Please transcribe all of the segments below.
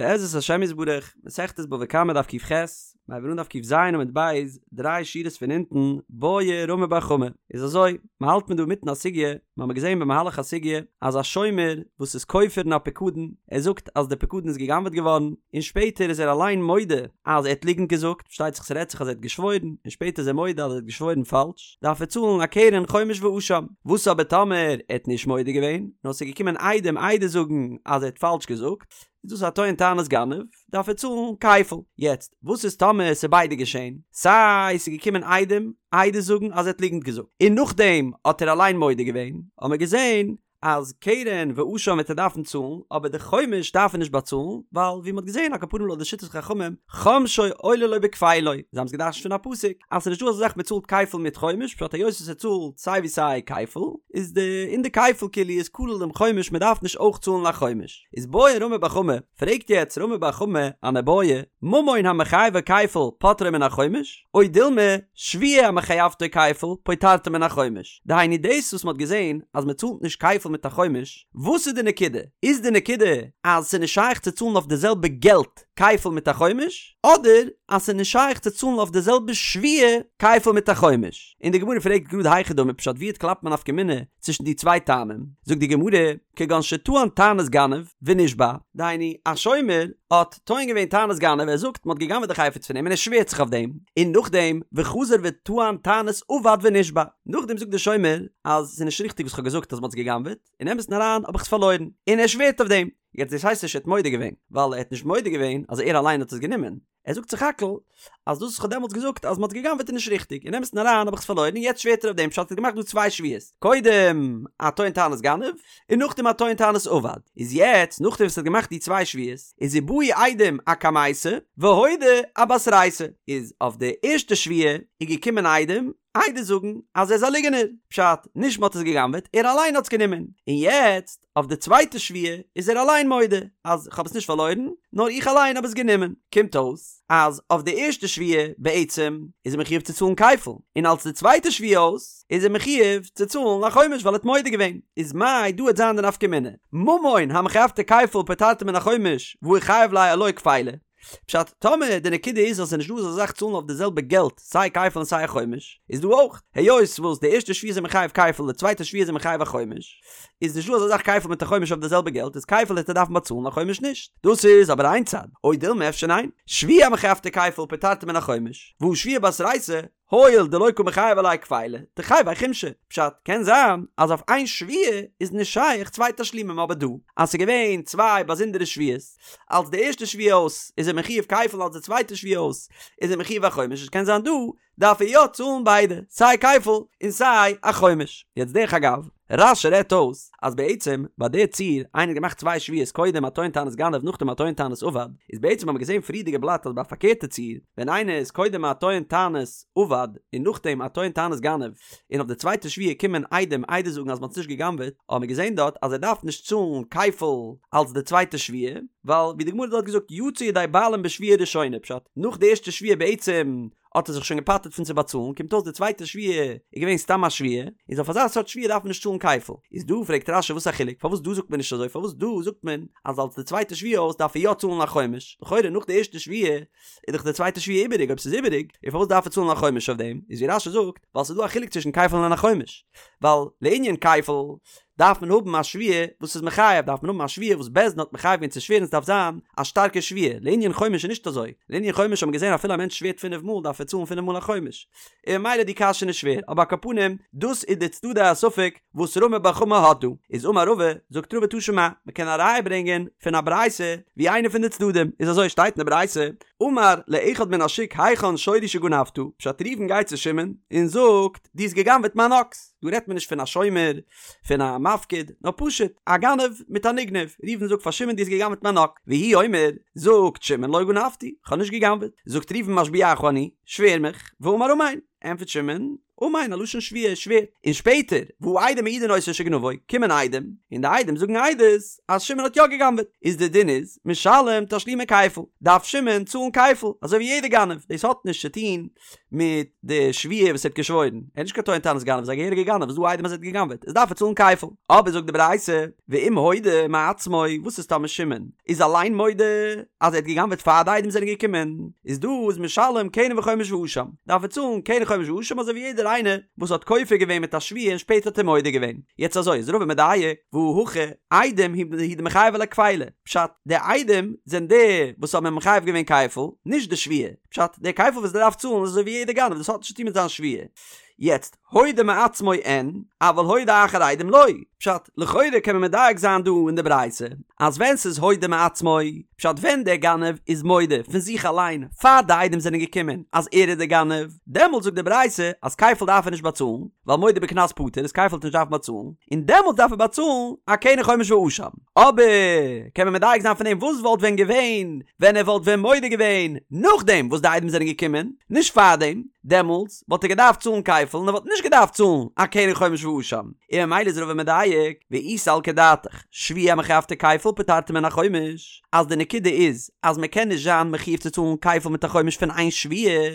בעזרת השם יתברך, מסכת בבא קמא דף ק"ח, מיר הייבן אן דף ק"ז עמוד ב', דריי שורות פון אונטן, בעי רמי בר חמא. איז אזוי, מ'האלט מיר דא אינמיטן א סוגיא, מ'האמיר געזען במהלך הסוגיא, אז א שומר וואס איז כופר אין א פיקדון, ער זאגט אז די פיקדון איז גע'גנב'עט געווארן, און שפעטער איז ער אליין מודה אז ער האט ליגנט געזאגט, פארשטייט זיך ס'רעדט זיך אז ער האט געשוואוירן, און שפעטער איז ער מודה אז ער האט געשוואוירן פאלש, דארף ער צאלן א קרן חומש ואשם. וואס אבער טאמער ער האט נישט מודה געווען, נאר ס'איז געקומען עדים עדות זאגן אז ער האט פאלש געזאגט, איז דאס א טוען טענת גנב, דארף ער צאלן כפל. יעצט, וואס איז טאמער ס'איז ביידע געשען, סיי ס'איז געקומען עדים עדות זאגן אז ער האט ליגנט געזאגט, און נאכדעם האט ער אליין מודה געווען, האמער געזען אז קרן ואשם וועט ער דארפן צאלן, אבער די חומש דארף ער נישט באצאלן, ווייל ווי מ'האט געזען על כל פנים לויט די שיטת חכמים, חומשו עולה לו בכפילו, זיי האבן עס געדרש'נט פון א פסוק, אז ס'איז נישטא אזא זאך מ'צאלט כפל מיט חומש, פשט היות ער צאלט סיי ווי סיי כפל, איז די אין די כפל כאילו איז כולל דעם חומש מ'דארף נישט אויך צאלן א חומש. איז בעי רמי בר חמא, פרעגט יעצט רמי בר חמא אן איבעיא, ממון המחייבו כפל פוטרו מן החומש, או דילמא שבועה המחייבתו כפל פוטרתו מן החומש, דהיינו דאס וואס מ'האט געזען אז מ'צאלט נישט כפל מיט א חומש, וואס איז די נקודה? איז די נקודה אז ס'איז נישט שייך צו צאלן אויף די זעלבע געלט כפל מיט א חומש, אדער אז ס'איז נישט שייך צו צאלן אויף די זעלבע שבועה כפל מיט א חומש? און די גמרא פרעגט גראד היכי דמי פשט ווי קלאפט מען א נפקא מינה צווישן די צוויי טעמים? זאגט די גמרא, כגון שטען טענת גנב ונשבע, דהיינו א שומר האט טוען געווען טענת גנב, ער זאגט מ'האט גע'גנב'עט די חפץ פון אים און ער שווערט זיך אויף דעם, און נאכדעם וחזר וטען טענת אבד ונשבע, נאכדעם זאגט דער שומר אז ס'איז נישט ריכטיג וואס כ'האב געזאגט אז מ'האט עס גע'גנב'עט, אין אמת'ן אריין האב איך עס פארלוירן, און ער שווערט אויף דעם, יעצט דאס הייסט נישט ער האט מודה געווען, ווייל ער האט נישט מודה געווען אז ער אליין האט עס גענומען, ער זאגט סך הכל אז דאס וואס כ'האב דעמאלטס געזאגט אז מ'האט גע'גנב'עט איז נישט ריכטיג, אין אמת'ן אריין האב איך עס פארלוירן און יעצט שווערט ער אויף דעם פשט ער האט געמאכט דא צוויי שבועות, קודם א טוען טענת גנב און נאכדעם א טוען טענת אבד, איז יעצט נאכדעם וואס ער האט געמאכט די צוויי שבועות איז ובאו עדים אקמייתא והודה אבתרייתא, איז אויף די ערשטע שבועה איז געקומען עדים עדות זאגן אז ער איז א ליגענער, פשט, נישט מ'האט עס גע'גנב'עט, ער אליין האט עס גענומען, און יעצט אויף די צווייטע שבועה איז ער אליין מודה אז כ'האב עס נישט פארלוירן, נאר איך אליין האב עס גענומען. קומט אויס אז אויף די ערשטע שבועה בעצם איז ער מחיוב צו צאלן כפל, און אלס די צווייטע שבועה אויס איז ער מחיוב צו צאלן א חומש ווייל ער האט מודה געווען. איז מאי דא וועט זיין די נפקא מינה, ממון המחייבתו כפל פוטרתו מן החומש והא איחייב ליה עילואי כפילא. פשט, טאמער די נקודה איז אז ס'איז נישט דא אזא זאך צאלן אויף די זעלבע געלט סיי כפל און סיי א חומש, איז דא אויך, היות וואס די ערשטע שבועה איז ער מחייב כפל די צווייטע שבועה איז ער מחייב א חומש, איז נישט דא אזא זאך כפל מיט א חומש אויף די זעלבע געלט איז כפל העט ער דארפן באצאלן א חומש נישט. דאס איז אבער איין צד, או דילמא אפשר ניין, שבועה המחייבתו כפל פוטרתו מן החומש, והא שבועה בתרייתא, הואיל דלא קא מיחייב עליה כפילא, תחייביה חומשא. פשט, קען זיין אז אויף איין שבועה איז נישט שייך צוויי תשלומים אבער דא אז ס'איז געווען צוויי באזונדערע שבועות, אלס די ערשטע שבועה אויס איז ער מחיוב כפל אלס די צווייטע שבועה אויס איז ער מחיוב א חומש עס קען זיין דא דארף ער יא צאלן ביידע סיי כפל און סיי א חומש. יעצט דרך אגב, רש"י רעדט אויס אז בעצם ביי די ציור איינער האט געמאכט צוויי שבועות קודם א טוען טענת גנב נאכדעם א טוען טענת אבד איז בעצם האט מען געזען פריערדיגע בלאט אז ביי א פארקערטע ציור ווען איינער איז קודם א טוען טענת אבד און נאכדעם א טוען טענת גנב און אויף די צווייטע שבועה קומען עדים עדות זאגן אז מען האט עס נישט גע'גנב'עט האט מען געזען דארט אז ער דארף נישט צאלן כפל אלס די צווייטע שבועה ווייל ווי די גמרא האט דארט געזאגט יצא ידי בעלים בשבועה ראשונה פשט נאך די ערשטע שבועה בעצם האט ער זיך שוין געפטר'ט פון צו באצאלן, קומט אויס די צווייטע שבועה איז געווען סתם א שבועה, איז אויף אזא סארט שבועה דארף מען נישט צאלן כפל. איז דא פרעגט רש"י וואס א חילוק, פארוואס דא זאגט מען נישט אזוי, פארוואס דא זאגט מען אז אלס די צווייטע שבועה אויס דארף ער יא צאלן א חומש, לכאורה נאך די ערשטע שבועה איז דאך די צווייטע שבועה איבעריג, אויב ס'איז איבעריג, איז פארוואס דארף ער צאלן א חומש אויף דעם, איז ווי רש"י זאגט, ווייל ס'איז דא א חילוק צווישן כפל און א חומש, ווייל לענין כפל, דארף מען האבן א שבועה וואס איז מחייב, דארף מען האבן א שבועה וואס בית דין האט מחייב געווען צו שווערן, ס'דארף זיין א שטארקע שבועה, לענין חומש איז נישט אזוי, לענין חומש האט מען געזען אפילו א מענטש שווערט פינף מאל דארף ער צאלן פינף מאל א חומש, און ממילא די קשיא איז נישט שווער, אבער על כל פנים דאס איז די צדדי הספק וואס רמי בר חמא האט דא, איז אמר רבא, זאגט רבא תא שמע, מען קען א ראיה ברענגען פון א ברייתא ווי איינע פון די צדדים איז אזוי שטייט אין די ברייתא, אמר לאחד מן השוק היכן שורי שגנבת, פשט ראובן גייט צו שמעון און זאגט דו האסט גע'גנב'עט מיין אקס, דא רעדט מען נישט פון א שומר, פון א מפקיד, נאר פשוט א גנב מיט א נגנב, ראובן זאגט פאר שמעון דו האסט גע'גנב'עט מיין אקס, והוא אומר, זאגט שמעון לא גנבתי, כ'האב נישט גע'גנב'עט, זאגט ראובן משביעך אני, שווער מיך, ואמר אמן. ענטפערט שמעון, אמן, א לשון שבועה, ער שווערט. און שפעטער, והעדים מעידין אותו שגנבו, קומען עדים, און די עדים זאגן עדות אז שמעון האט יא גע'גנב'עט, איז די דין איז, משלם תשלומי כפל, דארף שמעון צאלן כפל, אזוי ווי יעדער גנב, דאס האט נישט צו טון מיט די שבועה וואס ער האט געשוואוירן, ער איז נישט קיין טוען טענת גנב, ער איז א געהעריגער גנב, איז דא עדים אז ער האט גע'גנב'עט, איז דארף ער צאלן כפל. אבער זאגט די ברייתא, ואם הודה מעצמו, וואס איז טאמער שמעון איז אליין מודה אז ער האט גע'גנב'עט פאר די עדים זענען געקומען, איז דא איז משלם קרן וחומש ואשם, דארף ער צאלן קרן חומש ואשם אזוי ווי יעדער איינער וואס האט כופר געווען מיט א שבועה און שפעטער האט ער מודה געווען. יעצט אזוי איז רבא מדייק, והא הכא, עדים הוא דמיחייבי ליה כפילא, פשט, די עדים זענען די וואס האבן אים מחייב געווען כפל, נישט די שבועה, פשט, די כפל וואס ער דארף צאלן איז אזוי ווי יעדער גנב, דאס האט נישט צוטון מיט זיין שבועה. יעצט, הודה מעצמו אין, אבל הודה אחר עדים לא. פשט, לכאורה קען מען מדייק זיין דא אין די ברייתא, אז ווען ס'איז הודה מעצמו, פשט ווען דער גנב איז מודה פון זיך אליין פאר די עדים זענען געקומען אז ער איז דער גנב, דעמאלטס זאגט די ברייתא אז כפל דארף ער נישט באצאלן, ווייל מודה בקנס פטור איז כפל וועט נישט דארפן באצאלן, און דעמאלטס דארף ער באצאלן א קרן חומש ואשם. אבער קען מען מדייק זיין פון דעם וואס וואלט ווען געווען ווען ער וואלט ווען מודה געווען נאכדעם וואס די עדים זענען געקומען, נישט פארדעם, דעמאלטס וואלט ער געדארפט צאלן כפל און ער וואלט נישט געדארפט צאלן א קרן חומש ואשם, און ממילא איז רבא מדייק, ואי סלקא דעתך, שבועה המחייבתו כפל פוטרתו מן החומש, אז די נקודה איז אז מען קען נישט זיין מחויב צו צאלן כפל מיט א חומש פון איין שבועה,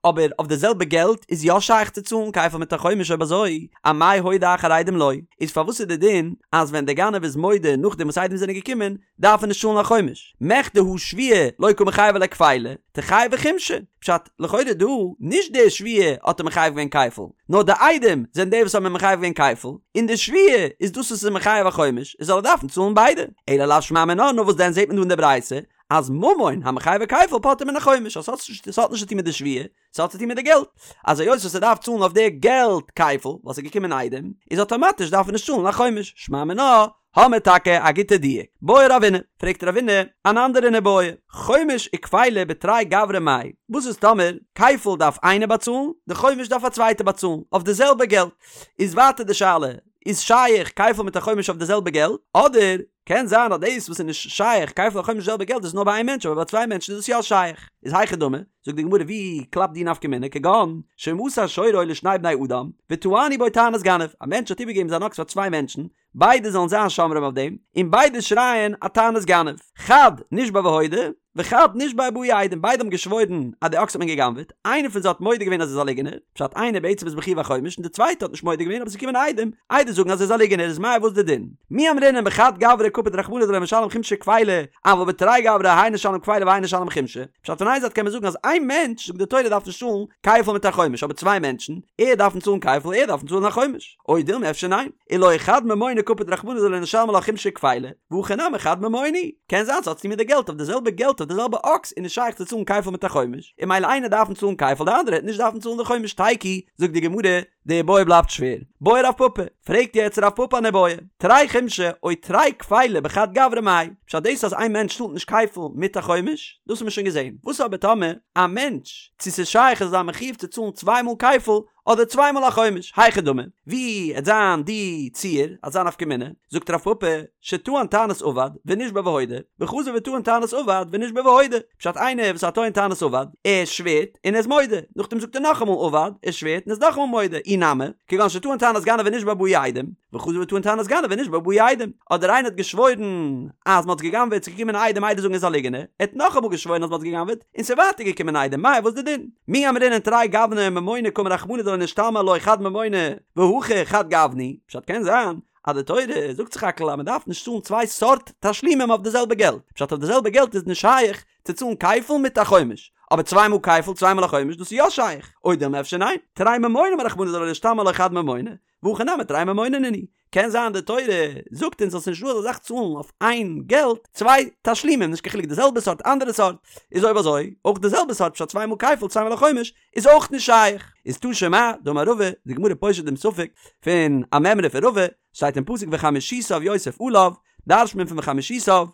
אבער אויף די זעלבע געלט איז יא שייך צו צאלן כפל מיט א חומש אויב אזוי, אמאי הודה אחר עדים לא, איז פארוואס איז די דין אז ווען די גנב איז מודה נאכדעם וואס עדים זענען געקומען דארף ער נישט צאלן א חומש? מכדי הא שבועה לא קא מיחייבא ליה כפילא, תחייביה חומשא, פשט, לכאורה דא, נישט די שבועה האט אים מחייב געווען כפל, נאר די עדים זענען די וואס האבן אים מחייב געווען כפל, און די שבועה איז דאס וואס איז מחייב א חומש, איז זאל ער דארפן צאלן ביידע. אלא לאו שמע מינה, נאר וואס דען זעט מען דא אין די ברייתא אז ממון המחייבו כפל פוטרו מן החומש, אז ס'האט נישט צו טון מיט די שבועה, ס'האט צו טון מיט די געלט, אז היות וואס ער דארף צאלן אויף די געלט כפל, ווייל ס'איז געקומען עדים, איז אטאמאטיש דארף ער נישט צאלן א חומש, שמע מינה, האמיר טאקע א גוטע דיוק. בעי רבינא, פרעגט רבינא אן אנדערע איבעיא, חומש וכפילא בתרי גברי מאי, וואס איז טאמער כפל דארף איינער באצאלן, די חומש דארף א צווייטער באצאלן, אויף די זעלבע געלט, איז ווייטער די שאלה, איז שייך כפל מיט א חומש אויף די זעלבע געלט, אדער קען זיין אז דאס וואס איז נישט שייך כפל א חומש די זעלבע געלט איז נאר ביי איין מענטש אבער ביי צוויי מענטשן איז דאס יא שייך, איז היכי דמי, זאגט די גמרא ווי קלאפט די נפקא מינה כגון שמסר שורו לשני בני אדם וטענו בו טענת גנב, א מענטש האט איבערגעגעבן זיין אקס פאר צוויי מענטשן, ביידע זאלן זיין שומרים אויף דעם, און ביידע שרייען א טענת גנב, חד נשבע והודה, וחד נשבע ובאו עדים, ביידע האבן געשוואוירן אז די אקס האט מען גע'גנב'עט, איינער פון זיי האט מודה געווען אז ער איז א ליגענער, פשט איינער בעצם איז מחויב א חומש און די צווייטע האט נישט מודה געווען אבער עס איז געקומען עדים, עדות זאגן אז ער איז א ליגענער איז מאי וואס די דין? מי אמרינן בחד גברא קפיד רחמנא דלא משלם חומשא וכפילא, אבל בתרי גברי האי נשלם כפילא והאי נשלם חומשא, פשט פון איין זייט קען מען זאגן אז איין מענטש זאגט די תורה דארף נישט צאלן כפל מיט א חומש אבער צוויי מענטשן, ער דארפן צאלן כפל ער דארפן צאלן א חומש. או דילמא אפשר ניין, עילואי חד ממונא קפיד רחמנא דלא נשלם עלה חומשא וכפילא, והכא נמי חד ממונא הוא, קען זיין ס'האט צוטון מיט די געלט אויף די זעלבע געלט אויף די זעלבע אקס איז נישט שייך צו צאלן כפל מיט א חומש, און ממילא איינער דארפן צאלן כפל די אנדערע העט נישט דארפן צאלן די חומש תיקו, זאגט די גמרא, די איבעיא בלייבט שווער. בעי רב פפא, פרעגט יעצט רב פפא אן איבעיא, תרי חומשי או תרי כפילי בחד גברא מאי, פשט דאס אז איין מענטש צאלט נישט כפל מיט א חומש, דאס האט מען שוין געזען, וואס אבער טאמער א מענטש, צו ס'איז שייך ער זאל זיין מחויב צו צאלן צוויי מאל כפל, אדער צוויי מאל א חומש, היכי דמי, ווי עט זיין די ציור, עט זיין נפקא מינה, זאגט רב פפא, שטען טענת אבד, ונשבע והודה, וחזר וטען טענת אבד, ונשבע והודה, פשט איינער וואס האט טוען טענת אבד, ער שווערט און ער איז מודה, נאכדעם זאגט ער נאכאמאל אבד, ער שווערט און איז נאכאמאל מודה, אי נמי, כגון שטען טענת גנב ונשבע ובאו עדים, וחזר וטען טענת גנב ונשבע ובאו עדים, אדער איינער האט געשוואוירן אז מען האט גע'גנב'עט, ס'איז געקומען עדים עדות זאגן ער איז א ליגענער, ער האט נאכאמאל געשוואוירן אז מען האט גע'גנב'עט, און ס'איז ווייטער געקומען עדים, מאי וואס די דין? מי אמרינן תרי גווני ממונא קאמר רחמנא דלא נשתלמי עילואי חד ממונא והכא חד גוונא הוא, פשט קען זיין אז די תורה זאגט סך הכל אז מען דארף נישט צאלן צוויי סארט תשלומים אויף די זעלבע געלט, פשט אויף די זעלבע געלט איז נישט שייך צו צאלן כפל מיט א חומש, אבער צוויי מאל כפל צוויי מאל א חומש דאס איז יא שייך, או דילמא אפשר ניין, תרי ממוני אמר רחמנא דלא נשתלמי עילואי חד ממונא, והכא נמי תרי ממוני נינהו, קען זיין די תורה זאגט אונז אז ס'נישט דא אזא זאך צאלן אויף איין געלט צוויי תשלומים נישט קיין חילוק די זעלבע סארט אנדערע סארט, איז אויב אזוי אויך די זעלבע סארט פשט צוויי מאל כפל צוויי מאל א חומש איז אויך נישט שייך. איז תא שמע דאמר רבא, די גמרא פושט דעם ספק פון א מימרא פון רבא, שטייט אין פסוק וחמישיתיו יוסף עליו, דרש'ט מען פון וחמישיתיו.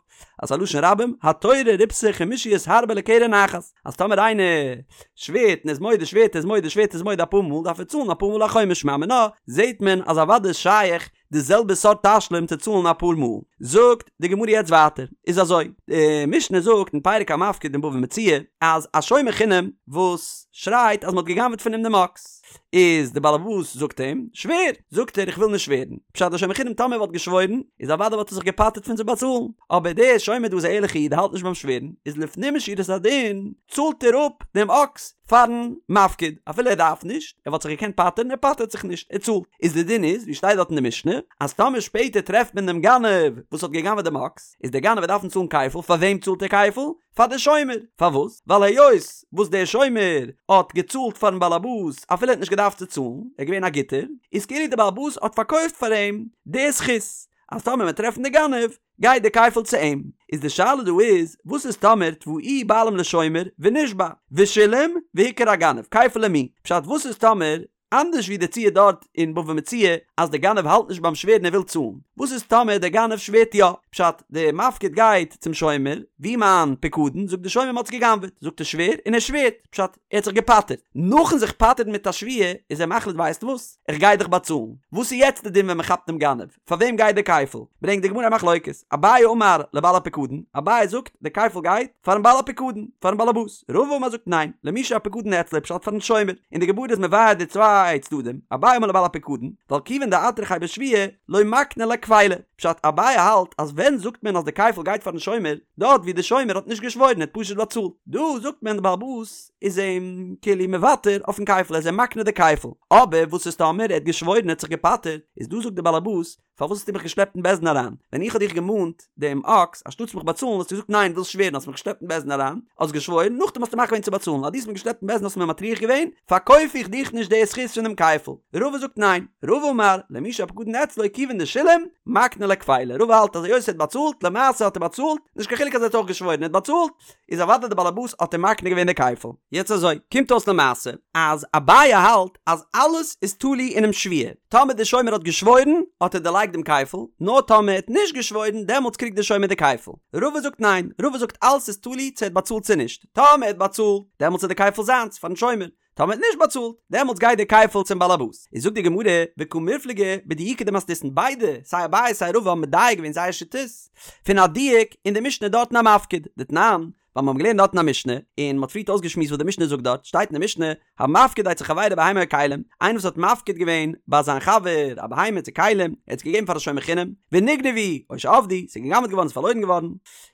אז ס'איז א לשון רבים, התורה ריבתה חמישיות הרבה לקרן אחת, אז טאמער איינער שווערט און איז מודה שווערט איז מודה שווערט איז מודה אפאר מאל דארף ער צאלן אפאר מאל א חומש שמע מינה, זעהט מען אז אוודאי איז שייך די זעלבע סארט תשלום צו צאלן אפאר מאל. זאגט די גמרא יעצט ווייטער, איז אזוי, די משנה זאגט אין פרק המפקיד אין בבא מציעא, אז א שומר חינם וואס שרייט אז מען האט גע'גנב'ט פון אים דעם אקס, איז די באלעבאס זאגט אים, שווער! זאגט ער איך וויל נישט שווערן. פשט די שומר חינם טאמער וואלט געשוואוירן, איז אוודאי וואלט ער זיך געפטר'ט פון צו באצאלן, אבער דער שומר דא איז א ערליכע איד ער האלט נישט ביים שווערן, איז לפנים משורת הדין צאלט ער אפ דעם אקס פארן מפקיד, אפילו ער דארף נישט, ער וואלט זיך געקענט פטר'ן, ער פטר'ט זיך נישט, ער צאלט. איז די דין איז, ווי שטייט דארט אין די משנה, אז טאמער שפעטער טרעפט מען דעם גנב וואס האט גע'גנב'עט דעם אקס, איז דער גנב וועט דארפן צאלן כפל, פאר וועם צאלט ער כפל? פאר די שומר! פארוואס? ווייל היות וואס דער שומר האט געצאלט פארן באלעבאס אפילו ער האט נישט געדארפט צו צאלן, ער איז געווען א גוטער, איז כאילו דער באלעבאס האט פארקויפט פאר אים די זכות, אז טאמער מען טרעפן די גנב, גייט די כפל צו אים. איז די שאלה דא איז, וואס איז טאמער תבעוהו בעלים לשומר ונשבע, ושילם והוכר הגנב, כפל למי? פשט וואס איז טאמער אנדערש ווי די ציור דארט אין בבא מציעא אז די גנב האלט נישט ביים שווערן ער וויל צאלן, וואס איז טאמער די גנב שווערט יא? פשט, די מפקיד גייט צום שומר, וואו מיין פיקדון? זאגט די שומר מ'האט עס גע'גנב'עט, זאגט ער שווער, און ער שווערט, פשט, ער האט זיך געפטר'ט, נאכן זיך פטר'ן מיט א שבועה איז ער מחליט ווייסט וואס? איך גיי דיך באצאלן, וואס איז יעצט די דין ווען מ'כאפט דעם גנב? פאר וועם גייט די כפל? ברענגט די גמרא א מחלוקת, אביי אמר לבעל הפיקדון, אביי זאגט די כפל גייט פארן בעל הפיקדון, פארן באלעבאס, רבא אמר זאגט ניין, למי שהפיקדון אצלו פשט פארן שומר, און די גמרא איז מבאר די צוויי צדדים, אביי אמר לבעל הפיקדון, ווייל כיוון דאטרחיה בשבועה, לא מקני ליה כפילא, פשט אביי האלט אז ווען זאגט מען אז די כפל גייט פארן שומר, דארט ווי די שומר האט נישט געשוואוירן ער האט פשוט באצאלט, דא זאגט מען די באלעבאס איז אים כאילו מוותר אויפן כפל ער איז אים מקנה די כפל, אבער וואס איז טאמער ער האט געשוואוירן ער האט זיך געפטר'ט, איז דא זאגט די באלעבאס, פארוואס האסטו מיך געשלעפט אין בית דין אריין? ווען איך האב דיך געמאנט דעם אקס, אנשטאטס מיך באצאלן האסטו געזאגט ניין ווילסט שווערן האסט מיך געשלעפט אין בית דין אריין, האסט געשוואוירן, נאכדעם האסטו מחליט געווען צו באצאלן, אז דו האסט מיך געשלעפט אין בית דין האסטו מיר מטריח געווען, פארקויף איך דיך נישט די זכות פון דעם כפל. רבא זאגט ניין, רבא אמר, למי שהפקדון אצלו כיוון דשילם, מקני ליה כפילא, רבא האלט אז היות ער האט באצאלט, למעשה האט ער באצאלט, נישט קיין חילוק אז ער האט אויך געשוואוירן, ער האט באצאלט, איז אוודאי די באלעבאס האט אים מקנה געווען די כפל. יעצט אזוי, קומט אויס למעשה אז אביי האלט אז אלעס איז תלוי אינעם שבועה, טאמער די שומר האט געשוואוירן האט ער דערלייגט דעם כפל, נאר טאמער ער האט נישט געשוואוירן דעמאלטס קריגט די שומר די כפל. רבא זאגט ניין, רבא זאגט אלעס איז תלוי צו ער האט באצאלט צו נישט, טאמער ער האט באצאלט דעמאלטס איז די כפל זיינס פארן שומר, טאמער האט נישט באצאלט, דעמאלטס גייט די כפל צום באלעבאס. איז זאגט די גמרא, וקא מיפלגי בדיוקא דמתניתין, ביידע, סיי אביי סיי רבא האבן מדייק געווען זייער שיטות, פון א דיוק אין די משנה דארט אין המפקיד, דתנן, ווייל מיר האבן געלערנט דארט אין א משנה, און מען האט פריערט אויסגעשמועסט וואס די משנה זאגט דארט, שטייט אין די משנה, המפקיד אצל חברו בהמה או כלים, איינער וואס האט מפקיד געווען ביי זיין חבר א בהמה צו כלים, ער האט עס געגעבן פאר א שומר חינם, ונגנבו, או שאבדו, ס'איז גע'גנב'ט געווארן, ס'איז פארלוירן געווארן,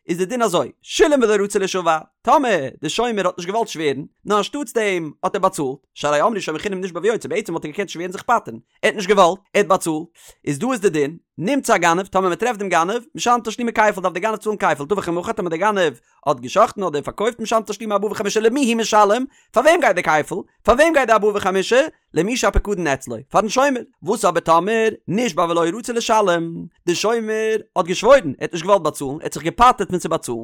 איז די דין אזוי, שילם ולא רצה לישבע, טאמער די שומר האט נישט געוואלט שווערן, נאר אנשטאטס דעם האט ער באצאלט, שהרי אמרו שומר חינם נשבע ויוצא, בעצם וואלט ער געקענט שווערן זיך פטר'ן, ער האט נישט געוואלט, ער האט באצאלט, איז דא איז די דין, נמצא הגנב, טאמער מען טרעפט דעם גנב, משלם תשלומי כפל דארף דער גנב צאלן כפל, טבח ומכר, טאמער דער גנב האט גע'שחט'ן אדער פארקויפט משלם תשלומי ארבעה וחמישה למי הוא משלם, פאר וועם גייט די כפל? פאר וועם גייט די ארבעה וחמישה? למי שהפקדון אצלו, פארן שומר. וואס אבער טאמער נשבע ולא רצה לשלם, די שומר האט געשוואוירן, ער האט נישט געוואלט באצאלן, ער האט זיך געפטר'ט פון צו באצאלן,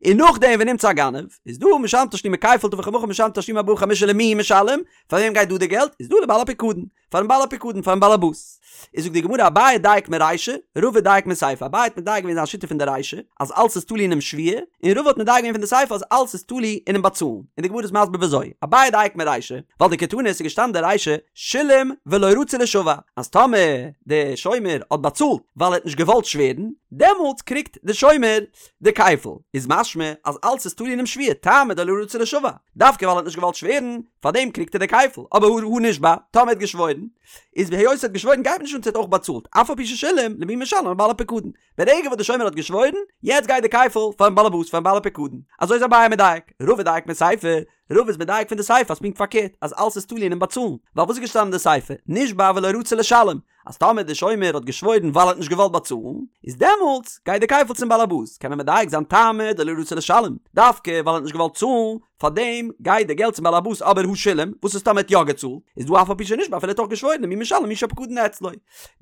און נאכדעם ונמצא הגנב, איז דא משלם תשלומי כפל טבח ומכר משלם תשלומי ארבעה וחמישה למי הוא משלם, פאר וועם גייט דא די געלט? איז דא לבעל הפקדון, פארן בעל הפקדון, פארן בעלעבאס. איז זאגט די גמרא אביי דייק מרישא, רבא דייק מסיפא, אביי האט מדייק געווען זיין שיטה פון די רישא, אז אלס איז תלוי אינעם שבועה, און רבא האט מדייק געווען פון די סיפא אז אלס איז תלוי אינעם באצאלן, און די גמרא איז מסביר וויאזוי, אביי דייק מרישא, ווייל דקתני עס איז געשטאנען די רישא, שילם ולא רצה לישבע, אז טאמער די שומר האט באצאלט ווייל ער האט נישט געוואלט שווערן, דעמאלטס קריגט די שומר די כפל, איז משמע אז אלס איז תלוי אינעם שבועה, טעמא דלא רצה לישבע, דווקא ווייל ער האט נישט געוואלט שווערן, פארדעם קריגט ער די כפל, אבער הא נשבע, טאמער ער האט געשוואוירן, איז היות ער האט געשוואוירן גייט מיר נישט אן צו ער האט אויך באצאלט, אף על פי ששילם, למי משלם לבעל הפקדון. ברגע וואס די שומר האט געשוואוירן, יעצט גייט די כפל פארן באלעבאס פארן בעל הפקדון. אזוי איז אביי מדייק, רבא דייק מסיפא, רבא איז מדייק פון די סיפא אז פונקט פארקערט, אז אלס איז תלוי אינעם באצאלן, ווייל וואס איז געשטאנען אין די סיפא, נשבע ולא רצה לשלם, אז טאמער די שומר האט געשוואוירן ווייל ער האט נישט געוואלט באצאלן, איז דעמאלטס גייט די כפל צום באלעבאס, קען מען מדייק זיין טעמא דלא רצה לשלם, דווקא ווייל ער האט נישט געוואלט צאלן, פארדעם גייט די געלט צום באלעבאס אבער הא שילם, וואס איז טאמער ער האט יא געצאלט, איז דא אף על פי שנשבע אפילו ער האט אויך געשוואוירן למי משלם למי שהפקדון אצלו,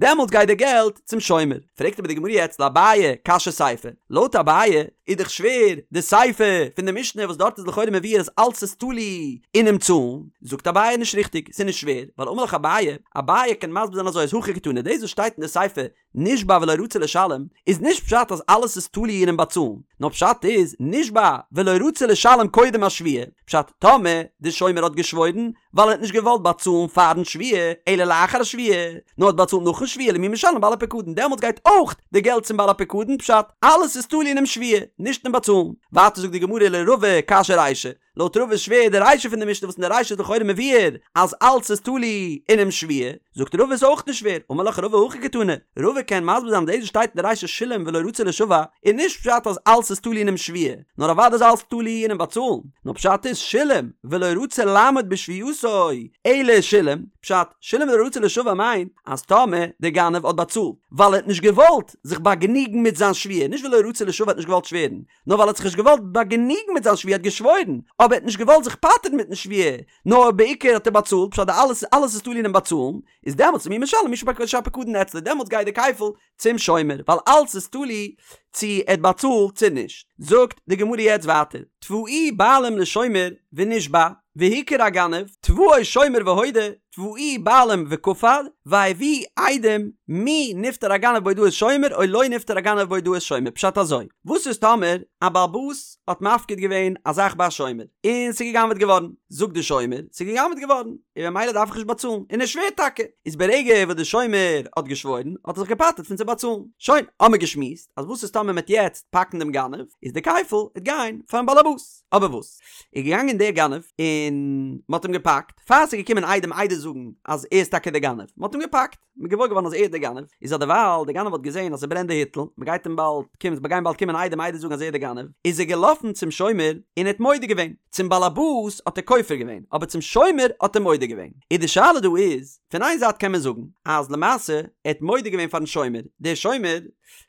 דעמאלטס גייט די געלט צום שומר. פרעגט אבער די גמרא יעצט לאביי קשיא סיפא, לויט אביי איז דאך שווער די סיפא פון די משנה וואס דארט איז לכאורה מבואר אז אלץ איז תלוי אינעם צאלן, זאגט אביי נישט ריכטיג, ס'איז נישט שווער, ווייל אמר לך אביי, אביי קען מסביר זיין אזוי אז הכא הכי קתני, דאס וואס שטייט אין די סיפא נשבע ולא רצה לשלם, איז נישט פשט אז אלעס איז תלוי אינעם באצאלן, נאר פשט איז נשבע ולא רצה לשלם קודם השבועה, פשט טאמער די שומר האט געשוואוירן ווייל ער האט נישט געוואלט באצאלן פארן שבועה אלא לאחר השבועה, נאר האט באצאלט נאכן שבועה למי משלם בעל הפקדון דעמאלטס גייט אויך די געלט צום בעל הפקדון, פשט אלעס איז תלוי אינעם שבועה, נישט אין באצאלן. ווייטער זאגט די גמרא לרבא קשיא רישא, לויט רבא איז שווער די רישא פון די משנה וואס אין די רישא איז לכאורה מבואר אז אלץ איז תלוי אינעם שבועה, זאגט רבא איז אויך נישט שווער, אמר לך רבא הכי קתני, רבא קען מסביר זיין דאס וואס שטייט אין די רישא שילם ולא רצה לישבע איז נישט פשט אז אלץ איז תלוי אינעם שבועה, נאר אוודאי איז אלץ תלוי אינעם באצאלן, נאר פשט איז שילם ולא רצה לעמוד בשבועתו אלא שילם, פשט, שילם ולא רצה לישבע מיינט אז טאמער דער גנב האט באצאלט ווייל ער האט נישט געוואלט זיך באגענוגן מיט זיין שבועה, נישט ולא רצה לישבע האט נישט געוואלט שווערן, נאר ווייל ער האט זיך נישט געוואלט באגענוגן מיט זיין שבועה, ער האט געשוואוירן, אבער ער האט נישט געוואלט זיך פטר'ן מיטן שבועה, נאר בעיקר האט ער באצאלט, פשט די אלעס אלעס איז תלוי אינעם באצאלן, איז דעמאלטס למי משלם מי שהפקדון אצלו, דעמאלטס גייט די כפל צום שומר, ווייל אלעס איז תלוי צו ער האט באצאלט צו נישט. זאגט די גמרא יעצט ווייטער, תבעוהו בעלים לשומר ונשבע, והוכר הגנב, תבעו שומר והודה, תבעוהו בעלים וכפר, והביאו עדים, מי נפטר הגנב בהודאת שומר או לא נפטר הגנב בהודאת שומר, פשט אזוי, וואס איז טאמער א בעל הבית האט מפקיד געווען א זאך ביי א שומר, און ס'איז גע'גנב'עט געווארן, זאגט די שומר, ס'איז גע'גנב'עט געווארן, און ממילא דארף איך נישט באצאלן, און ער שווערט טאקע, איז ברגע וואס די שומר האט געשוואוירן, האט ער זיך געפטר'ט פון צו באצאלן. שוין, האמיר געשמועסט, אז וואס איז טאמער מ'עט יעצט פאקן דעם גנב, איז די כפל עט גיין פארן בעל הבית. אבער וואס? איז געגאנגען דער גנב, און מ'האט אים געפאקט, פאר ס'איז געקומען עדים עדות זאגן אז ער איז טאקע דער גנב, מ'האט אים געפאקט, מ'איז געוואויר געווארן אז ער איז דער גנב, איז אדערווייל דער גנב האט געזען אז ס'ברענט די היטל, מ'גייט אים באלד קומען, ס'גייען באלד קומען עדים עדות זאגן אז ער איז דער גנב, איז ער געלאפן צום שומר און ער האט מודה געווען, צום באלעבאס האט ער כופר געווען, אבער צום שומר האט ער מודה געווען. איז די שאלה דא איז, פון איין זייט קען מען זאגן אז למעשה ער האט מודה געווען פארן שומר, דער שומר,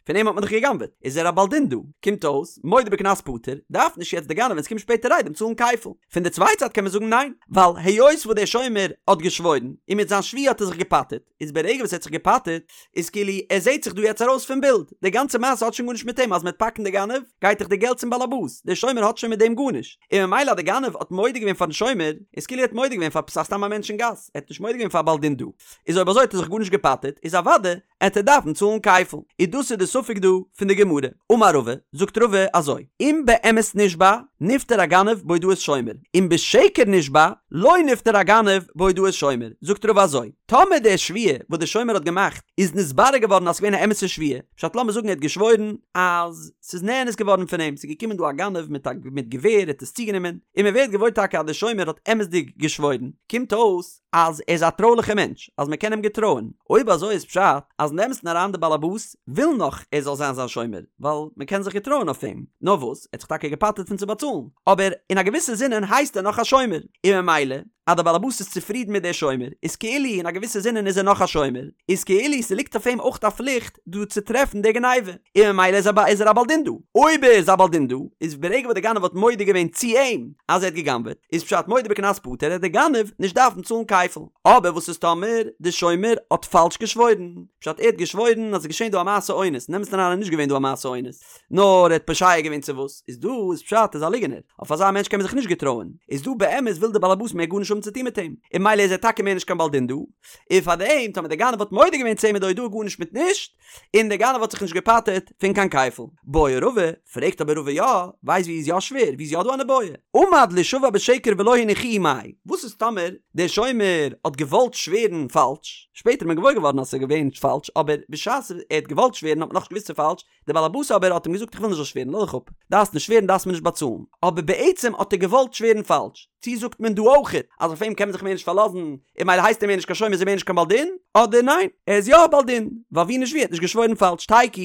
פון אים האט מען דאך גע'גנב'עט, איז ער א בעל דין דא, קומט אויס, מודה בקנס פטור, דארף נישט יעצט די גנב ווען ס'קומט שפעטער עדים צאלן כפל. פון די צווייטע זייט קען מען זאגן ניין, ווייל היות וואס דער שומר האט געשוואוירן, און מיט זיין שבועה האט ער זיך געפטר'ט, איז ברגע וואס ער האט זיך געפטר'ט, איז כאילו ער זעהט זיך דא יעצט ארויס פון בילד, די גאנצע מעשה האט שוין גארנישט מיט אים, אז מ'וועט פאקן די גנב, גייט דאך די געלט צום באלעבאס, דער שומר האט שוין מיט דעם גארנישט, און ממילא אז די גנב האט מודה געווען פארן שומר, איז כאילו ער האט מודה געווען פאר סתם א מענטש אין גאס, ער האט נישט מודה געווען פאר א בעל דין דא, איז אויב אזוי האט ער זיך גארנישט געפטר'ט, איז אוודאי עט ער דארפן צאלן כפל, איז דאס איז די ספק דא פון די גמרא. אמר רבא, זאגט רבא אזוי, אם באמת נשבע, נפטר הגנב בהודאת שומר, אם בשקר נשבע, לא נפטר הגנב בהודאת שומר, זאגט רבא אזוי, טאמער די שבועה וואס די שומר האט געמאכט איז נתברר געווארן אז ס'איז געווען א אמת'ע שבועה, פשט לאמיר זאגן ער האט געשוואוירן אז ס'איז נאנס געווארן פון אים, ס'איז געקומען דא א גנב מיט א מיט געווער ער האט עס צוגענומען, און מ'ווערט געוואויר טאקע אז די שומר האט אמת'דיג געשוואוירן, קומט אויס, אז ער איז א טרויליכע מענטש, אז מען קען אים געטרויען, אויב אזוי איז פשט אז אין אמת'ן אריין די באלעבאס וויל נאך ער זאל זיין זיין שומר, ווייל מען קען זיך געטרויען אויף אים, נאר וואס, ער האט זיך טאקע געפטר'ט פון צו באצאלן, אבער אין א געוויסע זינען הייסט ער נאך א שומר, און ממילא אז די באלעבאס איז צופרידן מיט דער שומר, איז כאילו אין א געוויסע זינען איז ער נאך א שומר, איז כאילו ס'ליגט אויף אים אויך א פליכט דא צו טרעפן די גניבה, און ממילא איז ער איז ער א בעל דין דא. אויב ער איז א בעל דין דא, איז ברגע וואס די גנב האט מודה געווען צו אים אז ער האט גע'גנב'עט, איז פשט מודה בקנס פטור עט די גנב נישט דארפן צאלן כפל. אבער וואס איז טאמער די שומר האט פאלש געשוואוירן? פשט ער האט געשוואוירן אז עס איז געשען דא א מעשה אונס, אין אמת'ן אריין איז נישט געווען דא א מעשה אונס, נאר ער האט פושע געווען צו וואס, איז דא איז פשט ער איז א ליגענער, אויף אזא מענטש קען מען זיך נישט געטרויען, איז דא באמת וויל די בעלעבאס מער גארנישט האבן צו טון מיט אים, און ממילא איז ער טאקע מער נישט קיין בעל דין דא, און פאר דעם טאמער דער גנב האט מודה געווען צו אים איז די הודאה גארנישט מיט נישט, און דער גנב האט זיך נישט געפטר'ט פון קיין כפל. בעי רבא, פרעגט אבער רבא יא, ווייסט ווי איז יא שווער, ווי איז יא דא אן איבעיא? עמד לישבע בשקר ולא הניחוהו מאי, וואס איז טאמער דער שומר האט געוואלט שווערן פאלש, שפעטער איז מען געוואויר געווארן אז ס'איז געווען פאלש, אבער בשעת ער האט געוואלט שווערן האט מען נאכנישט געוואוסט ס'איז פאלש, דער באלעבאס אבער האט אים געזאגט איך וויל נישט זאלסט שווערן, לאז דיך אפ, דארפסט נישט שווערן דארפסט מיר נישט באצאלן, אבער בעצם האט ער געוואלט שווערן פאלש, צי זאגט מען דא אויכעט אז אויף אים קען מען זיך מער נישט פארלאזן און ממילא הייסט ער מער נישט קיין שומר איז ער מער נישט קיין בעל דין, אדער ניין ער איז יא א בעל דין ווייל ווי נישט ווי ער האט נישט געשוואוירן פאלש תיקו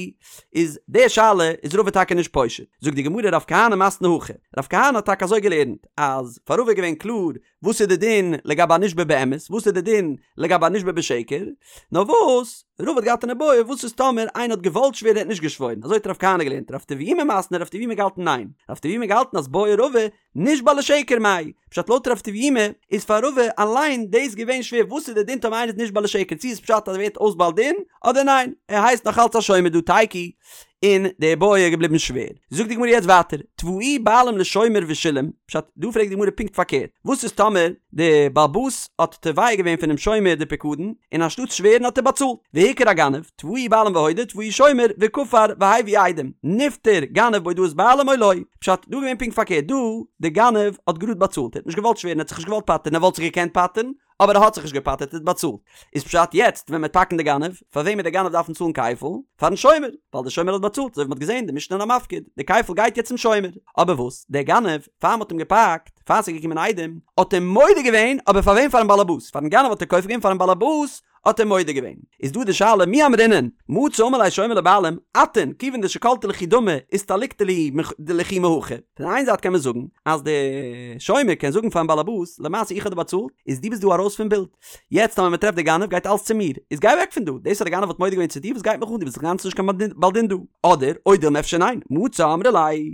איז די שאלה איז רבא טאקע נישט פושט, זאגט די גמרא רב כהנא מתני הכי, רב כהנא האט טאקע אזוי געלערנט אז פאר רבא איז געווען קלאר וואס איז די דין לגבי א נשבע באמת וואס איז די דין לגבי א נשבע בשקר, נאר וואס רבא האט געהאט אן איבעיא וואס איז טאמער איינער האט געוואלט שווערן ער האט נישט געשוואוירן אזוי האט רב כהנא געלערנט רב טביומי מתני רב טביומי געהאלטן ניין רב טביומי געהאלטן אז בעי רבא נשבע לשקר מאי, פשט לויט רב טביומי איז פאר רבא אליין דאס געווען שווער וואס איז די דין טאמער איינער איז נשבע לשקר? צו איז פשט אז ער ווערט אויס בעל דין אדער ניין ער הייסט נאך אלץ א שומר דא תיקו און די בעיא איז געבליבן שווער. זאגט די גמרא יעצט ווייטער תבעוהו בעלים לשומר ושילם, פשט, דא פרעגט די גמרא פונקט פארקערט, וואס איז טאמער די בעל הבית האט תובע געווען פונעם שומר די פיקדון, און אנשטאט שווערן האט ער באצאלט, והוכר הגנב, תבעוהו בעלים והודה, תבעוהו שומר, וכפר, והביא עדים, נפטר גנב בהודאת בעלים או לא, פשט, דא איז געווען פונקט פארקערט, דא די גנב האט גראד באצאלט, ער האט נישט געוואלט שווערן, ער האט זיך נישט געוואלט פטר'ן, ער וואלט זיך געקענט פטר'ן, אבער ער האט זיך נישט געפטר'ט ער האט באצאלט. איז פשט יעצט ווען מ'וועט פאקן די גנב, פאר וועם וועט די גנב דארפן צאלן כפל? פארן שומר, ווייל די שומר האט באצאלט, אזוי ווי מ'האט געזען די משנה אין המפקיד, די כפל גייט יעצט צום שומר. אבער וואס, דער גנב, פאר מ'האט אים געפאקט, פאר ס'איז געקומען עדים, האט ער מודה געווען, אבער פאר וועם? פארן באלעבאס, פארן גנב האט ער כופר געווען, פארן באלעבאס האט ער מודה געווען. איז דא די שאלה מי אמרינן, מצי אמר ליה שומר לבעלים, אתון, כיוון דשקלתו לכו דמי, אסתליקתו לכו מהכא. פון איין זייט קען מען זאגן אז די שומר קען זאגן פארן באלעבאס, למעשה איך האב דיר באצאלט, איז דו ביסט דא ארויס פון בילד. יעצט טאמער מען טרעפט די גנב גייט אלס צו מיר, איז גיי אוועק פון דא, דאס אז די גנב האט מודה געווען צו דיר וואס גייט מיך אן, דו ביסט אינגאנצן נישט קיין בעל דין דא. אדער, או דילמא אפשר ניין, מצי אמרי ליה,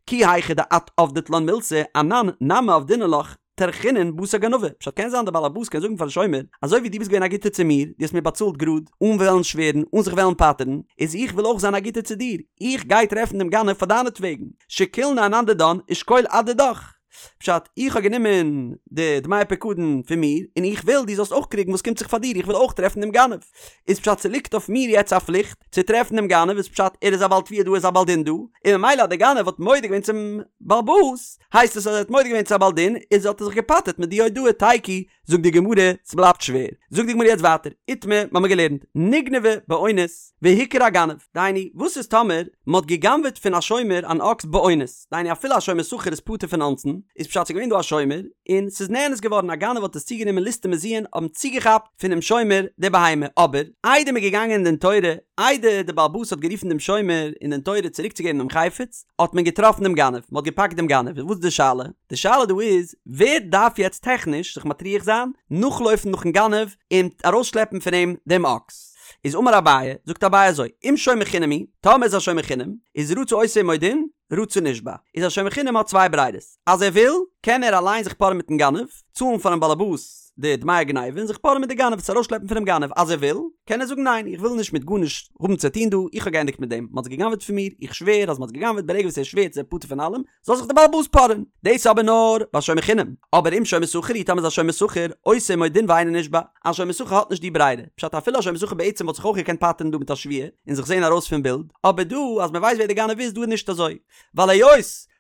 כי היכי דאת עבדת לן מילתא, אנן נמי עבדינן לך, טרחינן בתר גנבא, פשט קען זיין דער בעל הבית קען זאגן פארן שומר, אזוי ווי דו ביסט געווען א גוטער צו מיר, דו האסט מיר באצאלט גראד, אן וועלן שווערן, אן זיך וועלן פטר'ן, איז איך וויל אויך זיין א גוטער צו דיר, איך גיי טרעפן דעם גנב פאר דיינעטוועגן, שקילנא אנן דידן ושקול את דידך. פשט, איך האב גענומען די דמי פיקדון פון מיר, און איך וויל דו זאלסט אויך קריגן וואס קומט זיך פאר דיר, איך וויל אויך טרעפן דעם גנב. איז פשט ס'ליגט אויף מיר יעצט א פליכט צו טרעפן דעם גנב, איז פשט ער איז א בעל תביעה דא ער איז א בעל דין דא, און ממילא אז דער גנב האט מודה געווען צום בעל הבית, הייסט עס אז ער האט מודה געווען צו א בעל דין, איז האט ער זיך געפטר'ט מיט די הודאה תיקו, זאגט די גמרא, ס'בלייבט שווער. זאגט די גמרא יעצט ווייטער, איתמר, מ'האמיר געלערנט, נגנבה באונס, והוכר הגנב, דהיינו, וואס איז טאמער מ'האט גע'גנב'עט פון א שומר אן אקס באונס, דהיינו אפילו א שומר שכר איז פטור פון אונסין, איז פשט ס'איז געווען דא א שומר, און ס'איז נאנס געווארן, א גנב האט עס צוגענומען ליסטים מזויין האבן צוגעכאפט פונעם שומר די בהמה, אבער, איידער מ'איז געגאנגען אין דין תורה, איידער דער בעל הבית האט גערופן דעם שומר אין דין תורה צוריקצוגעבן דעם חפץ, האט מען געטראפן דעם גנב, מ'האט געפאקט דעם גנב, איז וואס איז די שאלה? די שאלה דא איז, ווער דארף יעצט טעכניש זיך מטריח זיין, נאכלויפן נאכן גנב, און ארויסשלעפן פון אים דעם אקס? איז אמר אביי, זאגט אביי אזוי, אם שומר חינם הוא, טאמער איז א שומר חינם, איז רצה עושה עמו דין, רצה נשבע. איז א שומר חינם האט צוויי ברירות, אז ער וויל, קען ער אליין זיך פארען מיטן גנב, צאלן פארן באלעבאס די דמי הגניבה און זיך פארען מיט די גנב, עס ארויסשלעפן פונעם גנב, אז ער וויל, קען ער זאגן ניין, איך וויל נישט מיט גארנישט האבן צו טון דא, איך האב געענדיגט מיט דעם, מען האט עס גע'גנב'עט פון מיר, איך שווער אז מען האט עס גע'גנב'עט, ברגע וואס ער שווערט איז ער פטור פון אלעם, זאל זיך די באלעבאס פארען. דאס איז אבער נאר ביי שומר חינם, אבער אם שומר שכר הוא, טאמער איז א שומר שכר, עושה עמו דין ואינו נשבע, א שומר שכר האט נישט די ברירה, פשט אפילו א שומר שכר בעצם וואלט זיך אויך געקענט פטר'ן דא מיט א שבועה און זיך זעהן ארויס פון בילד, אבער דא אז מען ווייסט ווער די גנב איז דא איז נישט אזוי, ווייל היות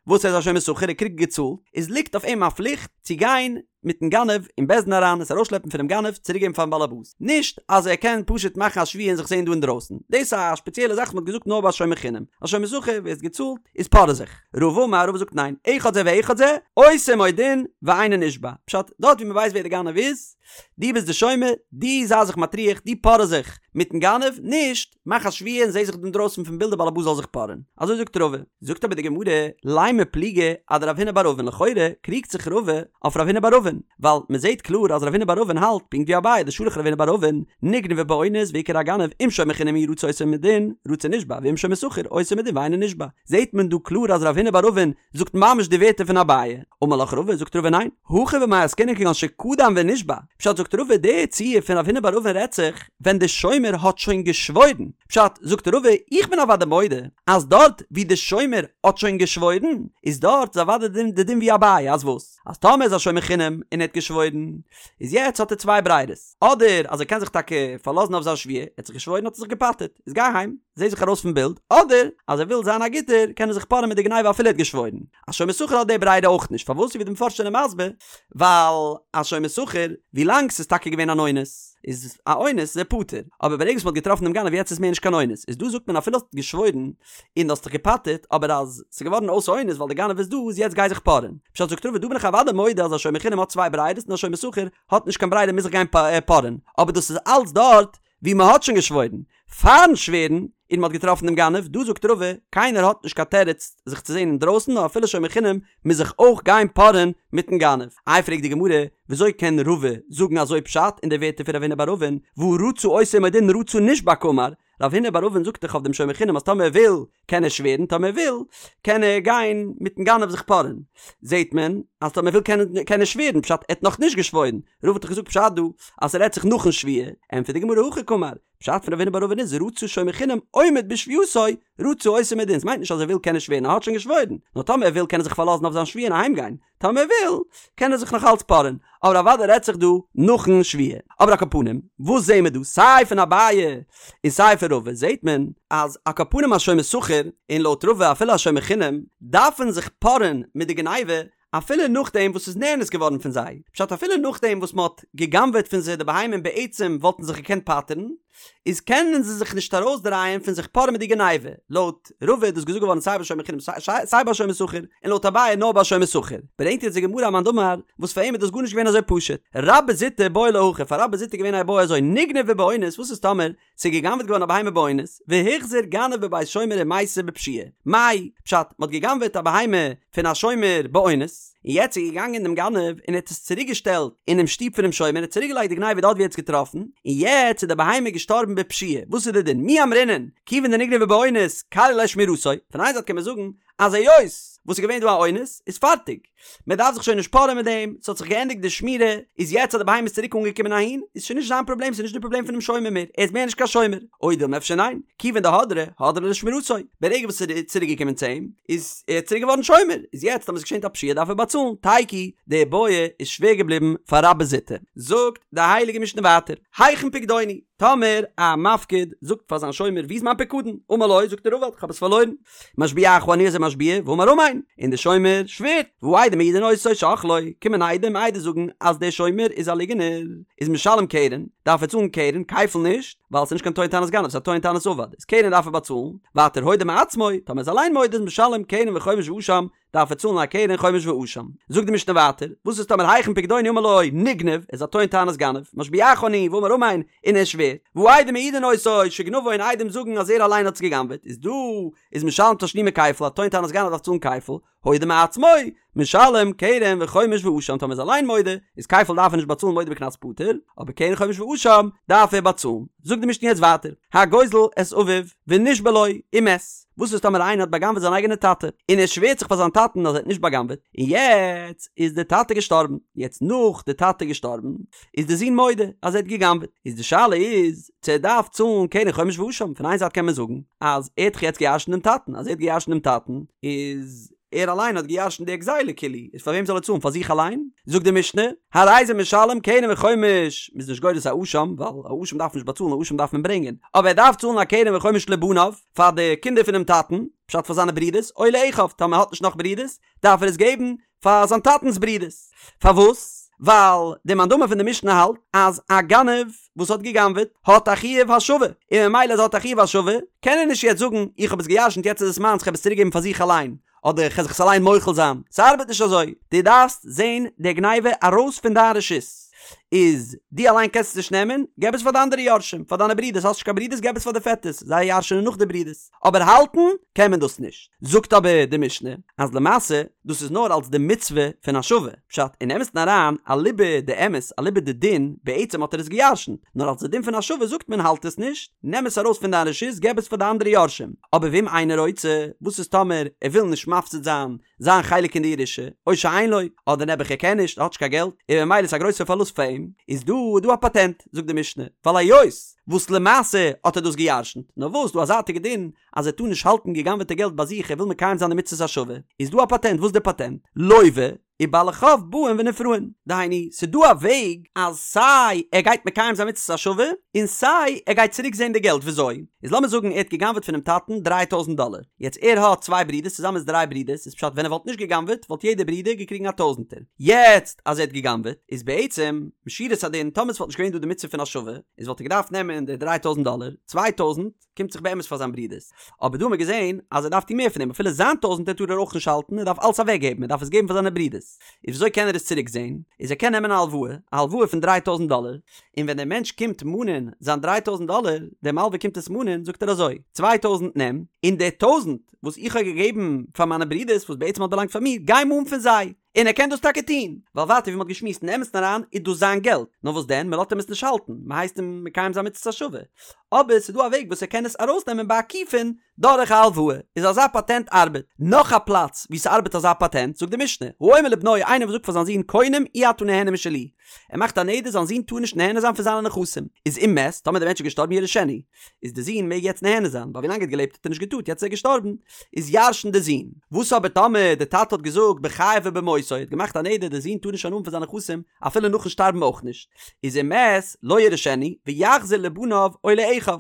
וואס ער איז א שומר שכר ער קריגט געצאלט, איז ליגט אויף אים א פליכט צו גיין מיטן גנב אין בית דין אריין עס ארויסשלעפן פונעם גנב צוריקגעבן פארן באלעבאס, נישט אז ער קען פשוט מאכן א שבועה און זיך זעהן דא אינדרויסן, דאס איז א שפעציעלע זאך וואס מען האט געזאגט נאר ביי שומר חינם, א שומר שכר ווערסט געצאלט איז פארע זיך. רבא אמר רבא זאגט ניין, אחד זה ואחד זה, עושה עמו דין ואינו נשבע, פשט, דארט ווי מען ווייסט ווער די גנב איז, דו ביסט די שומר, דו זיי זיך מטריח, דו פארע זיך מיטן גנב, נישט, מאך א שבועה און זע זיך אינדרויסן פון בילד די בעל הבית זאל זיך פארען. אזוי זאגט רבא. זאגט אבער די גמרא, לימא פליגא אדרב הונא בר אבין לכאורה קריגט זיך רבא אויף רב הונא בר אבין, ווייל מען זעט קלאר אז רב הונא בר אבין האלט פונקט ווי אביי דשלח רב הונא בר אבין, נגנבה באונס והוכר הגנב אם שומר חינם הוא רצה עושה עמו דין, רצה נשבע ואם שומר שכר עושה עמו דין ואינו נשבע. זעט מען דא קלאר אז רב הונא בר אבין זאגט ממש די ווערטער פון אביי. אמר לך רבא, זאגט רבא ניין, הכא במאי עסקינן כגון שקדם ונשבע, פשט זאגט רבא די ציור פון רב הונא בר אבין רעדט זיך ווען די שומר האט שוין געשוואוירן, פשט זאגט רבא איך בין אוודאי מודה אז דארט ווי די שומר האט שוין געשוואוירן איז דארט איז אוודאי די דין ווי אביי אז וואס אז טאמער איז א שומר חינם און ער האט געשוואוירן איז יעצט האט ער צוויי ברירות אדער אז ער קען זיך טאקע פארלאזן אויף זיין שבועה ער האט זיך געשוואוירן האט ער זיך געפטר'ט איז גיי אהיים זע זיך ארויס פון בילד אדער אז ער וויל זיין א גוטער קען ער זיך פארען מיט די גניבה אפילו ער האט געשוואוירן. א שומר שכר האט די ברירה אויך נישט, פארוואס ווי די מפרשים זענען מסביר, ווייל א שומר שכר, ווי לאנג ס'איז טאקע געווען אן אונס, איז א אונס איז ער פטור, אבער ברגע וואס מ'האט געטראפן דעם גנב יעצט איז מער נישט קיין אונס, איז דא זאגט מען אפילו האסט געשוואוירן און האסט דיך געפטר'ט, אבער אז ס'איז געווארן אויס אונס ווייל די גנב איז דא, איז יעצט גיי זיך פארען. פשט זאגט רבא דא בין איך אוודאי מודה אז א שומר חינם האט צוויי ברירות און א שומר שכר האט נישט קיין ברירה מוז זיך גיין פארען, אבער דאס איז אלץ דארט ווי מען האט שוין געשוואוירן פארן שווערן און מען האט געטראפן דעם גנב, דא זאגט רבא, קיינער האט נישט קיין תירוץ זיך צו זען אינדרויסן נאר אפילו שומר חינם מוז זיך אויך גיין פארען מיטן גנב. איי פרעגט די גמרא, וויאזוי קען רבא זאגן אזוי פשט אין די ווערטער פון רב הונא בר אבין, והא רצה עושה עמו דין רצה נשבע קאמר, רב הונא בר אבין זאגט דאך אויף דעם שומר חינם אז טאמער ער וויל קען ער שווערן טאמער ער וויל קען ער גיין מיטן גנב זיך פארען, זעהט מען אז טאמער ער וויל קען קען ער שווערן, פשט ער האט נאך נישט געשוואוירן, רבא האט דאך געזאגט פשט דא אז ס'רעדט זיך נאכן שבועה, ענטפערט די גמרא הכי קאמר, פשט פון רב הונא בר אבין איז רצה שומר חינם עומד בשבועתו רצה אותו מדין, ס'מיינט נישט אז ער וויל קען ער שווערן ער האט שוין געשוואוירן, נאר טאמער ער וויל קען ער זיך פארלאזן אויף זיין שבועה און אהיים גיין, טאמער ער וויל קען ער זיך נאך אלץ פארען, אבער אוודאי רעדט זיך דא נאכן שבועה. אבער על כל פנים, וואס זעהן מיר דא? סיי פון אביי און סיי פון רבא זעהט מען אז על כל פנים א שומר שכר, און לויט רבא אפילו א שומר חינם, דארפן זיך פארען מיט די גניבה אפילו נאכדעם וואס ס'איז נאנס געווארן פון זיי, פשט אפילו נאכדעם וואס מ'האט גע'גנב'עט פון זיי די בהמה און בעצם וואלטן זיך געקענט פטר'ן, איז קענען זיי זיך נישט ארויסדרייען פון זיך פארען מיט די גניבה, לויט רבא איז דאס געזאגט געווארן סיי ביי שומר חינם סיי ביי שומר שכר, און לויט אביי נאר ביי שומר שכר. ברענגט יעצט די גמרא א מאן דאמר וואס פאר אים איז דאס גארנישט געווען אזוי פשוט. רבה זוטא בעי לה הכי, פאר רבה זוטא איז געווען א איבעיא אזוי נגנבה באונס, וואס איז טאמער ס'איז גע'גנב'עט געווארן א בהמה באונס, והוחזר גנב בבית שומר ומתה בפשיעה. מאי, פשט, מ'האט גע'גנב'עט א בהמה פון א שומר באונס, און יעצט איז געגאנגען דעם גנב און ער האט עס צוריק געשטעלט אינעם שטוב פונעם שומר, ער האט צוריק געלייגט די גניבה דארט ווי ער האט עס געטראפן, און יעצט איז די בהמה געשטארבן בפשיעה, וואס איז די דין? מי אמרינן, כיוון דנגנבה באונס, כליא ליה שמירתו, פון איין זייט קען מען זאגן אז היות וואס איז געווען דא א אונס איז פארטיג, מען דארף זיך שוין נישט פארען מיט דעם, ס'האט זיך געענדיגט די שמירה, איז יעצט אז די בהמה איז צוריק אנגעקומען אהין, איז שוין נישט זיין פראבלעם, ס'איז נישט די פראבלעם פונעם שומר מער, ער איז מער נישט קיין שומר. או דילמא אפשר ניין, כיוון דהדרא, הדרה לשמירתו, ברגע וואס ס'איז צוריק געקומען צו אים, איז ער צוריק געווארן שומר, איז יעצט אז ס'איז געשען א פשיעה דארף ער באצאלן, תיקו, די בעיא איז שווער געבליבן פאר רבה זוטא. זאגט די הייליגע משנה ווייטער, היכן פקדוני? טאמער א מפקיד זאגט פאר זיין שומר וואו איז מיין פיקדון? אמר לו, זאגט ער אבד, כ'האב עס פארלוירן. משביעך אני איז ער משביע, ואמר אמן, און דער שומר שווערט, והעדים מעידין אותו שאכלו, קומען עדים עדות זאגן אז דער שומר איז א ליגענער, איז משלם קרן, דארף ער צאלן קרן, כפל נישט, ווייל ס'איז נישט קיין טוען טענת גנב, ס'איז א טוען טענת אבד, איז קרן דארף ער באצאלן, ווייטער הודה מעצמו, טאמער איז אליין מודה איז משלם קרן וחומש ואשם, דארף ער צאלן א קרן חומש ואשם. זאגט די משנה ווייטער, וואס איז טאמער היכן פקדוני אמר לו נגנב, איז א טוען טענת גנב, משביעך אני ואמר אמן, און ער שווערט, והעדים מעידין אותו שגנבו און עדים זאגן אז ער אליין האט עס גע'גנב'עט, איז דא איז משלם תשלומי כפל, א טוען טענת גנב דארף צאלן כפל, הודה מעצמו, משלם קרן וחומש ואשם, טאמער איז אליין מודה, איז כפל דארף ער נישט באצאלן מודה בקנס פטור, אבער קרן חומש ואשם דארף ער באצאלן. זאגט די משנה יעצט ווייטער, הגוזל את אביו ונשבע לו ומת, וואס איז טאמער איינער האט בא'גנב'עט זיין אייגענע טאטע, און ער שווערט זיך פאר זיין טאטן אז ער האט נישט בא'גנב'עט, און יעצט איז די טאטע געשטארבן, יעצט נאך די טאטע געשטארבן, איז די זון מודה אז ער האט גע'גנב'עט, איז די שאלה איז צו ער דארף צאלן קרן חומש ואשם, פון איין זייט קען מען זאגן אז ער האט דאך יעצט גע'ירש'נט דעם טאטן, אז ער האט גע'ירש'נט דעם טאטן איז ער אליין האט גע'ירש'נט די גזילה כאילו, איז פאר וועם זאל ער צאלן פאר זיך אליין? זאגט די משנה, הרי זה משלם קרן וחומש, מ'איז נישט גורס א אשם, ווייל א אשם דארף מען נישט באצאלן, א אשם דארף מען ברענגען, אבער ער דארף צאלן א קרן וחומש לבניו, פאר די קינדער פונעם טאטן, פשט פאר זיינע ברודערס, או לאחיו, טאמער ער האט נישט נאך ברודערס, דארף ער עס געבן פאר זיין טאטנ'ס ברודערס. פארוואס? ווייל די מאן דאמר פון די משנה האלט אז א גנב וואס האט גע'גנב'עט האט א חיוב השבה, און ממילא אז ער האט א חיוב השבה קען ער נישט יעצט זאגן איך האב עס גע'ירש'נט יעצט איז עס מיינס כ'האב עס צוריק געבן פאר זיך אליין, אדער כ'על זיך עס אליין מוחל זיין. ס'ארבעט נישט אזוי. דו דארפסט זען די גניבה ארויס פון דיין רשות. איז דו אליין קענסט עס נישט נעמען, געב עס פאר די אנדערע יורשים, פאר דיינע ברודערס, האסט נישט קיין ברודערס געב עס פאר די פעטערס, זיי ירש'נען נאך די ברודערס. אבער האלטן קען מען דאס נישט. זאגט אבער די משנה אז למעשה דאס איז נאר אלס די מצוה פון השבה, פשט אין אמת'ן אריין אליבא דאמת אליבא דדין בעצם האט ער עס גע'ירש'נט, נאר אלס די דין פון השבה זאגט מען האלט עס נישט, נעם עס ארויס פון דיין רשות געב עס פאר די אנדערע יורשים, אבער ואם אינו רוצה, וואס איז טאמער ער וויל נישט מפסיד זיין זיין חלק אין די ירושה, או שאין לו, אדער נעבעך ער קען נישט, ער האט נישט קיין געלט, און ממילא איז א גרויסער פארלוסט פאר אים, איז דא איז דא א פאטענט, זאגט די משנה, ווייל היות וואס למעשה האט ער דאס גע'ירש'נט, נאר וואס דא א זייטיגע דין אז ער טאר נישט האלטן גע'גנב'עטע געלט ביי זיך ער וויל מקיים זיין די מצוות השבה, איז דא א פאטענט, וואס איז די פאטענט? לוה, ובעלי חוב באים ונפרעין, דהיינו, ס'איז דא א וועג אז סיי ער גייט מקיים זיין מצוות השבה, און סיי ער גייט צוריק זען די געלט, וויאזוי? איז לאמיר זאגן ער האט גע'גנב'עט פונעם טאטן דריי טויזנט דאלער, יעצט ער האט צוויי ברודערס צוזאמען איז דריי ברודערס, איז פשט ווען ער וואלט נישט גע'גנב'עט וואלט יעדער ברודער געקריגן א טויזנטער, יעצט אז ער האט גע'גנב'עט איז בעצם משורת הדין טאמער ס'וואלט נישט געווען דא די מצוה פון השבה איז וואלט ער געדארפט נעמען די דריי טויזנט דאלער, צוויי טויזנט קומט זיך באמת פאר זיין ברודערס, אבער דא האט מען געזען אז ער דארף טון מער פון דעם אפילו זיין טויזנטער טאר ער אויך נישט האלטן ער דארף אלץ אוועק געבן ער דארף עס געבן פאר זיינע ברודערס, איז וויאזוי קען ער עס צוריק זען? איז ער קען נעמען א הלוואה, א הלוואה פון דריי טויזנט דאלער, און ווען דער מענטש קומט מאנען זיין דריי טויזנט דאלער, דער מלווה קומט עס מאנען, זאגט ער אזוי, צוויי טויזנט נעם, און די טויזנט וואס איך האב געגעבן פאר מיינע ברודערס וואס בעצם האט באלאנגט פאר מיר, גיי מאן פון זיי. און ער קען דאס טאקע טון, ווייל ווייטער ווי מ'האט געשמועסט אין אמת'ן אריין איז דאס זיין געלט, נאר וואס דען, מ'לאזט אים עס נישט האלטן, מ'הייסט אים מקיים זיין מצות השבה. אבער ס'איז דא א וועג וואס ער קען עס ארויסנעמען בעקיפין דורך א הלוואה, איז אזא פאטענט ארבעט. נאך א פלאץ וואו ס'ארבעט אזא פאטענט, זאגט די משנה, האומר לבנו איינער וואס זאגט פאר זיין זון קונם אי אתה נהנה משלי, ער מאכט א נדר זיין זון טאר נישט נהנה זיין פון זיינע נכסים, איז אם מת, טאמער דער מענטש איז געשטארבן יירשנו, איז די זון מעג יעצט נהנה זיין, ווייל ווילאנג ער האט געלעבט האט ער נישט געטארט, יעצט איז ער געשטארבן, איז ירש'ן די זון. וואס אבער טאמער די טאטע האט געזאגט בחייו ובמותו, ער האט געמאכט א נדר די זון טאר נישט הנאה האבן פון זיינע נכסים אפילו נאכן שטארבן אויך נישט, איז אם מת לא יירשנו ויחזיר לבניו או לאחיו.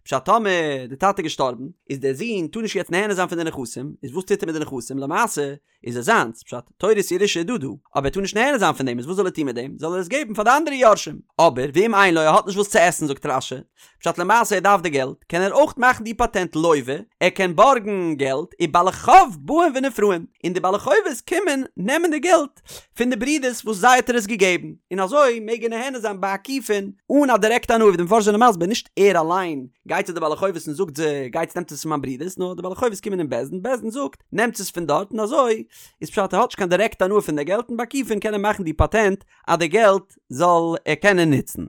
פשט טאמער די טאטע איז געשטארבן, איז דער זון טאר נישט יעצט נהנה זיין פון די נכסים, איז וואס טוט ער מיט די נכסים? למעשה איז עס זיינס, פשט, תורת ירושה איז דא דא, אבער ער טאר נישט נהנה זיין פון דעם, איז וואס זאל ער טון מיט דעם? זאל ער עס געבן פאר די אנדערע יורשים. אבער, ואם אין לו, ער האט נישט וואס צו עסן, זאגט רש"י, פשט למעשה ער דארף די געלט, קען ער אויך מאכן די פאטענט לוה, ער קען בארגן געלט, ובעלי חוב באים ונפרעין, און די בעלי חובות קומען נעמען די געלט פון די ברידערס וואס זיי האט ער עס געגעבן, און אזוי מעג ער נהנה זיין בעקיפין אן א דירעקטע הנאה, ווי די מפרשים זענען מסביר, נישט ער אליין גייט צו די בעלי חובות און זאגט זיי, גייטס נעמטס עס פון מיין ברידערס, נאר די בעלי חובות קומען אין בית דין, בית דין זאגט, נעמטס עס פון דארט און אזוי איז פשט ער האט נישט קיין דירעקטע הנאה פון די געלט און בעקיפין קען ער מאכן די פאטענט אז די געלט זאל ער קענען נוצן.